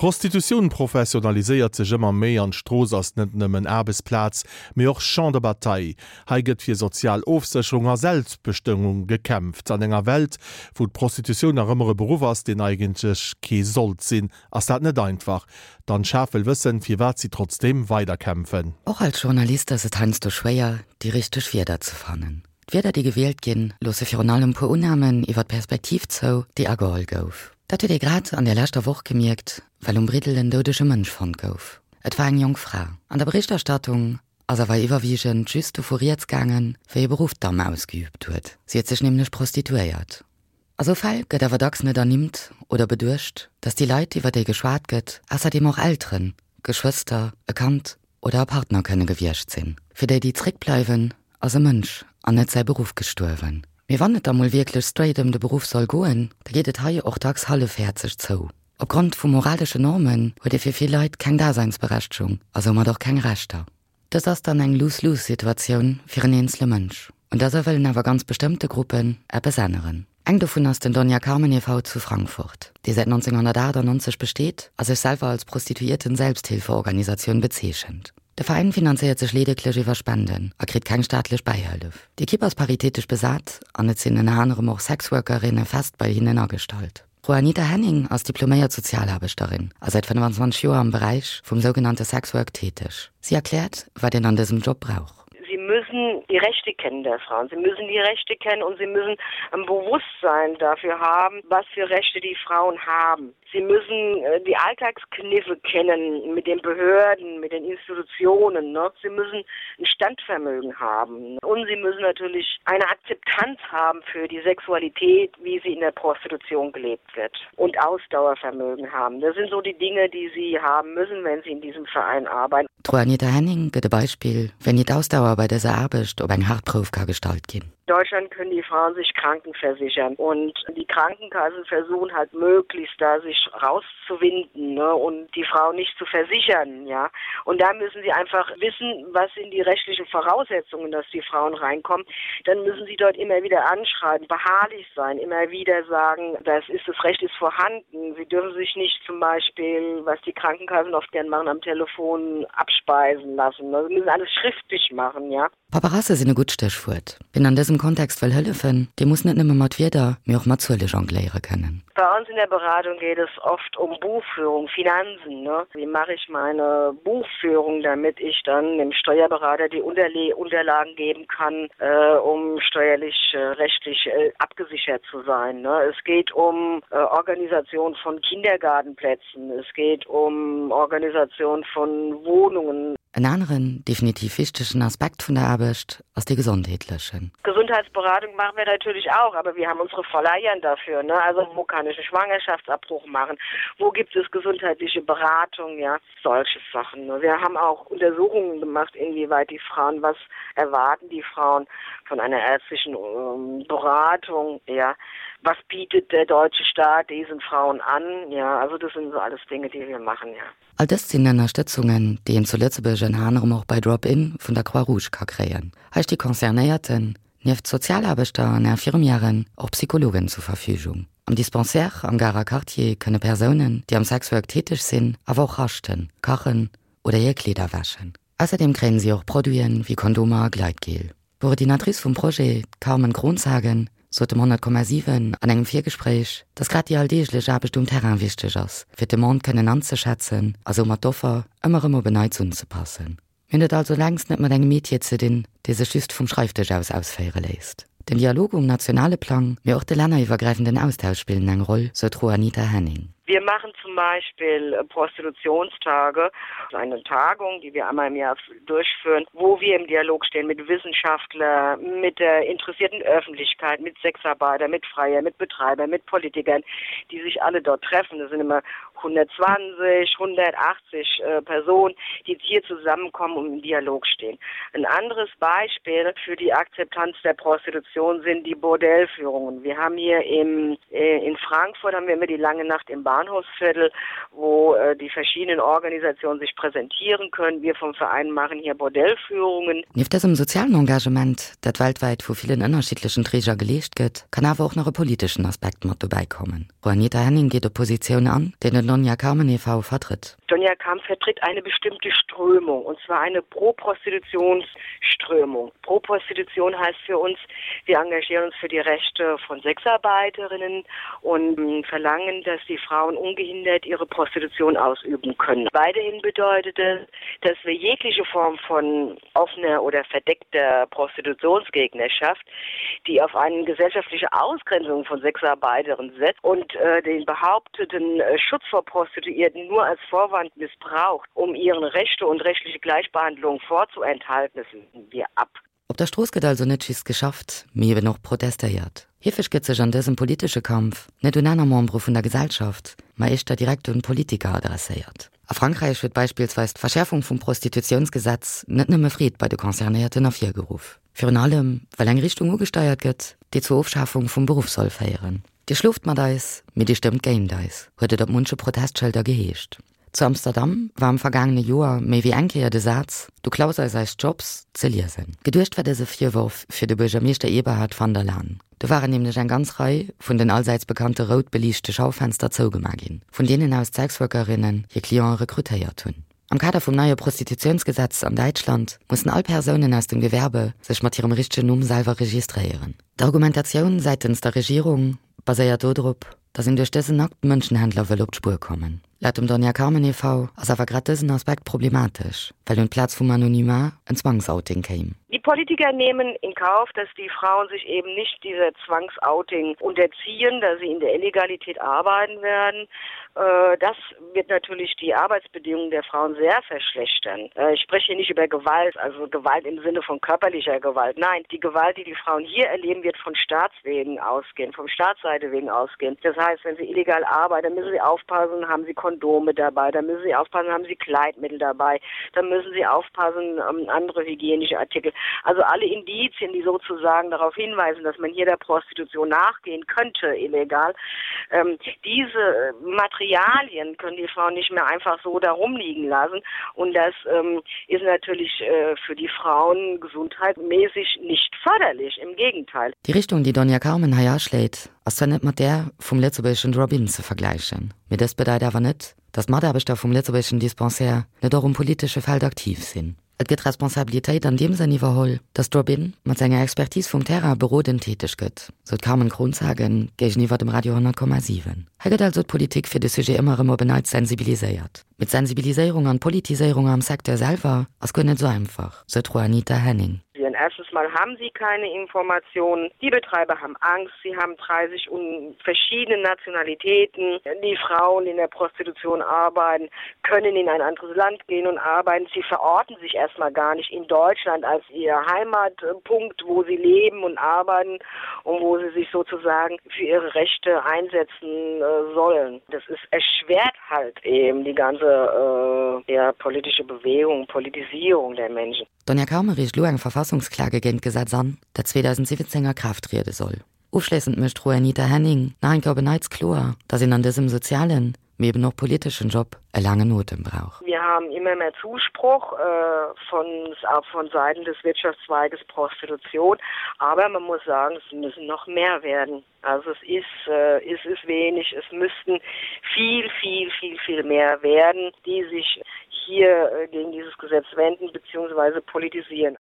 D'Prostitutioun professionaliséiert sech ëmmer méi an d'Strooss ass net nëmmen Aarbechtsplaz, mee och Champ de bataille. Hei gëtt fir sozial Ofsécherung a Selbstbestëmmung gekämpft. An enger Welt, wou d'Prostitutioun nach ëmmer e Beruff ass, deen eigentlech kee sollt sinn, ass dat net einfach. D'Anne Schaaf wëll wëssen, firwat si trotzdeem weiderkämpfen. Och als Journalist ass et heiansdo schwéier, déi richteg Wierder ze fannen. D'Wierder, déi gewielt ginn, loosse virun allem puer Unnamen iwwer d'Perspektiv zou, déi ageholl gouf. Dat huet ee grad an der leschter Woch gemierkt, well um Briddel en doudege Mënsch fonnt gouf. Et war eng jonk Fra. An der Berichterstattung ass awer iwwerwiegend just dovu rieds gaangen, wéi e Beruff d'Damm ausgeübt huet. Si huet sech nämlech prostituéiert. A sou Fäll gëtt awer dacks net ernimmt oder beduecht, datt déi Leit, iwwer déi geschwat gëtt, ausserdeem och Elteren, Geschwëster, e Kand oder e Partner kënne gewiescht sinn. Fir déi, déi zréckbleiwen, ass e Mënsch an net säi Beruff gestuerwen. Mee wann et da mol wierklech straight ëm de Beruff soll goen, da geet et hei och dacks hallefhäerzeg zou. Opgrond vu moralesche Normen huet ee fir vill Leit keng Daseinsberechtegung a soumat och keng Rechter. Dëst ass dann eng Lose-lose-Situatioun fir en eenzele Mënsch. Un dëser wëllen awer ganz bestëmmte Gruppen eppes änneren. Eng dovun ass den Doña Carmen e. V. zu Frankfurt, dee säit 1998 besteet a sech selwer als Prostituierten-Selbsthilfeorganisatioun bezeechent. De Veräin finanzéiert sech leedeglech iwwer Spenden a kritt keng staatlech Bäihëllef. D'Ekipp ass paritätesch besat an et sinn ënner anerem och Sexworkerinne fest bei hinnen agestallt. D'Juanita Henning ass diploméiert Sozialaarbechterin a säit 25 Joer am Beräich vum sougenannte Sexwork täteg. Si erkläert, wat een an dësem Job brauch. Sie müssen die Rechte kennen der Frauen. Sie müssen die Rechte kennen und sie müssen ein Bewusstsein dafür haben, was für Rechte die Frauen haben. Sie müssen äh, die Alltagskniffe kennen mit den Behörden, mit den Institutionen. Ne? Sie müssen ein Standvermögen haben. Und sie müssen natürlich eine Akzeptanz haben für die Sexualität, wie sie in der Prostitution gelebt wird und Ausdauervermögen haben. Das sind so die Dinge, die sie haben müssen, wenn sie in diesem Verein arbeiten. D'Juanita Henning gëtt e Beispill, wéini d'Ausdauer bei dëser Aarbecht op eng haart Prouf ka gestallt ginn. Deutschland können die Frauen sich krankenversichern und die Krankenkassen versuchen halt möglichst da sich rauszuwinden ne, und die Frau nicht zu versichern ja und da müssen sie einfach wissen, was sind die rechtlichen Voraussetzungen, dass die Frauen reinkommen. Dann müssen sie dort immer wieder anschreiben, beharrlich sein, immer wieder sagen, das ist das Recht ist vorhanden. Sie dürfen sich nicht zum Beispiel, was die Krankenkassen oft gern machen am Telefon abspeisen lassen. Sie müssen alles schriftlich machen ja. Paperasse sinn e gutt Stéchwuert. Wien an dësem Kontext wëll hëllefen, dee muss net nëmme mat Wierder, mee och mat Zuele jongléiere kënnen. Bei uns in der Beratung geht es oft um Buchführung, Finanzen, ne? Wie mache ich meine Buchführung, damit ich dann dem Steuerberater die Unterle Unterlagen geben kann, äh, um steuerlich äh, rechtlich äh, abgesichert zu sein, ne? Es geht um äh, Organisation von Kindergartenplätzen, es geht um Organisation von Wohnungen. En aneren, definitiv wichtegen Aspekt vun der Aarbecht ass dee gesondheetlechen. Gesundheitsberatung machen wir natürlich auch, aber wir haben unsere Verleihern dafür, ne? Also wo kann ich einen Schwangerschaftsabbruch machen? Wo gibt es gesundheitliche Beratung, ja? Solche Sachen, ne? Wir haben auch Untersuchungen gemacht, inwieweit die Frauen, was erwarten die Frauen von einer ärztlichen Beratung, ja? Was bietet der deutsche Staat diesen Frauen an, ja? Also das sind so alles Dinge, die wir machen, ja. All dëst sinn Ënnerstëtzungen, déi een zu Lëtzebuerg ënner anerem och bei Drop-In vun der Croix-Rouge ka kréien. Hei sti Concernéierten, nieft Sozialaarbechter an Infirmièren, och Psychologen zur Verfügung. Am Dispensaire am Garer Quartier kënne Persounen, déi am Sexwork täteg sinn, awer och raschten, kachen oder hir Kleeder wäschen. Ausserdeem kréien si och Produiten wéi Kondomer a Gleitgel. D'Coordinatrice vum Projet, d'Carmen Kronshagen, sot dem 100,7 an engem Virgespréich, datt grad déi alldeeglech Aarbecht um Terrain wichteg ass, fir d'Demande kënnen anzeschätzen a soumat d'Offer ëmmer erëm op en Neits unzepassen. Mir hunn et also längst net mat engem Metier ze dinn, dee sech just vum Schreifdësch aus ausféiere léisst. Den Dialog um nationale Plang, mee och de länneriwwergräifenden Austausch spillen eng Roll, sou d'Juanita Henning. Wir machen zum Beispiel Prostitutionstage, eine Tagung, die wir einmal im Jahr durchführen, wo wir im Dialog stehen mit Wissenschaftler, mit der interessierten Öffentlichkeit, mit Sexarbeiter, mit Freier, mit Betreiber, mit Politikern, die sich alle dort treffen. Das sind immer 120, 180 äh, Personen, die hier zusammenkommen und im Dialog stehen. Ein anderes Beispiel für die Akzeptanz der Prostitution sind die Bordellführungen. Wir haben hier im, äh, in Frankfurt haben wir immer die lange Nacht im. Bahnhofsviertel, wo äh, die verschiedenen Organisationen sich präsentieren können. Wir vom Verein machen hier Bordellführungen. Nieft dësem sozialen Engagement, dat weltwäit vu villen ënnerschiddlechen Träger geleescht gëtt, kann awer och nach e politeschen Aspekt mat dobäi kommen. Juanita Henning geet op Positioun an, déi den Doña Carmen e.V. vertritt. Doña Carmen vertritt eine bestimmte Strömung, und zwar eine Pro-Prostitutionsströmung. Pro-Prostitution heißt für uns, wir engagieren uns für die Rechte von Sexarbeiterinnen und verlangen, dass die Frauen ungehindert ihre Prostitution ausüben können. Weiterhin bedeutet es, dass wir jegliche Form von offener oder verdeckter Prostitutionsgegnerschaft, die auf eine gesellschaftliche Ausgrenzung von Sexarbeiterinnen setzt und äh, den behaupteten äh, Schutz vor Prostituierten nur als Vorwand missbraucht, um ihren Rechte und rechtliche Gleichbehandlung vorzuenthalten, das lehnen wir ab. Op der Strooss gëtt also net just geschafft, mee eben och protestéiert. Heefeg gëtt sech an dësem politesche Kampf net un aner Membere vun der Gesellschaft, ma éischter direkt un Politiker adresséiert. A Frankräich huet beispillsweis d'Verschäerfung vum Prostitutiounsgesetz net nëmme Freed bei de Concernéierten ervirgeruff. Virun allem, well eng Richtung ugesteiert gëtt, déi zur Ofschafung vum Beruff soll féieren. Dir schloft mat eis, mee dir stëmmt géint eis, huet et op munche Protestschëlder geheescht. Zu Amsterdam war am vergaangene Joer méi wéi eng Kéier de Saz Du klaus eis eis Jobs ze liesen. Geduecht war dëse Virworf fir de Buergermeeschter Eberhard van der Laan. Do waren nämlech eng ganz Rei vun den allsäits bekannte rout beliichte Schaufenster zougema ginn, vun deenen aus d'Sexworkerinnen hir Cliente rekrutéiert hunn. Am Kader vum neie Prostitutiounsgesetz an Däitschland mussen all Persounen aus dem Gewerbe sech mat hirem richtegen Numm selwer registréieren. D'Argumentatioun säitens der Regierung baséiert dodrop, datt een duerch dësen Akt Mënschenhändler wëll op d'Spuer kommen. Laut dem Doña Carmen e.V. ass awer grad dësen Aspekt problematesch, well un d'Plaz vum Anonymat en Zwangsouting kéim. Die Politiker nehmen in Kauf, dass die Frauen sich eben nicht dieser Zwangsouting unterziehen, da sie in der Illegalität arbeiten werden. Äh, das wird natürlich die Arbeitsbedingungen der Frauen sehr verschlechtern. Äh, ich spreche hier nicht über Gewalt, also Gewalt im Sinne von körperlicher Gewalt. Nein, die Gewalt, die die Frauen hier erleben, wird von Staatswegen ausgehen, vom Staatsseite wegen ausgehen. Das heißt, wenn sie illegal arbeiten, dann müssen sie aufpassen, haben sie Kondome dabei, dann müssen sie aufpassen, haben sie Kleidmittel dabei, dann müssen sie aufpassen, ähm, andere hygienische Artikel. Also alle Indizien, die sozusagen darauf hinweisen, dass man hier der Prostitution nachgehen könnte, illegal. Ähm, diese äh, Materialien können die Frauen nicht mehr einfach so da rumliegen lassen. Und das ähm, ist natürlich äh, für die Frauen gesundheitsmäßig nicht förderlich, im Gegenteil. Déi Richtung, déi Doña Carmen hei aschléit, ass zwar net mat där vum lëtzebuergeschen Drop-in ze vergläichen, mee dëst bedeit awer net, datt d'Mataarbechter vum lëtzebuergeschen Dispensaire net och um politesche Feld aktiv sinn. Et gëtt Responsabilitéit an deem Sënn iwwerholl, datt Drop-in mat senger Expertise vum Terrain berodend täteg gëtt, sou d'Carmen Kronshagen géigeniwwer dem Radio 100,7. Hei gëtt also d'Politik fir de Sujet ëmmer erëm op en Neits sensibiliséiert. Mee d'Sensibiliséierung an d'Politiséierung am Secteur selwer ass guer net esou einfach, sou d'Juanita Henning. Erstens mal haben sie keine Informationen. Die Betreiber haben Angst, sie haben 30 und verschiedene Nationalitäten. Die Frauen, die in der Prostitution arbeiten, können in ein anderes Land gehen und arbeiten. Sie verorten sich erstmal gar nicht in Deutschland als ihr Heimatpunkt, wo sie leben und arbeiten und wo sie sich sozusagen für ihre Rechte einsetzen äh, sollen. Das ist erschwert halt eben die ganze äh, ja, politische Bewegung, Politisierung der Menschen. D'Doña Carme reecht elo eng Verfassungsklage géint d'Gesetz an, dat 2017 a Kraaft triede soll. Ofschléissend mécht d'Juanita Henning nach eng Kéier op en Neits kloer, datt een an dësem sozialen, mee eben och politeschen Job e laangen Otem brauch. Wir haben immer mehr Zuspruch von von Seiten des Wirtschaftszweiges Prostitution, aber man muss sagen, es müssen noch mehr werden. Also es ist, äh, es ist wenig, es müssten viel, viel, viel, viel mehr werden, die sich hier äh, gegen dieses Gesetz wenden bzw. politisieren.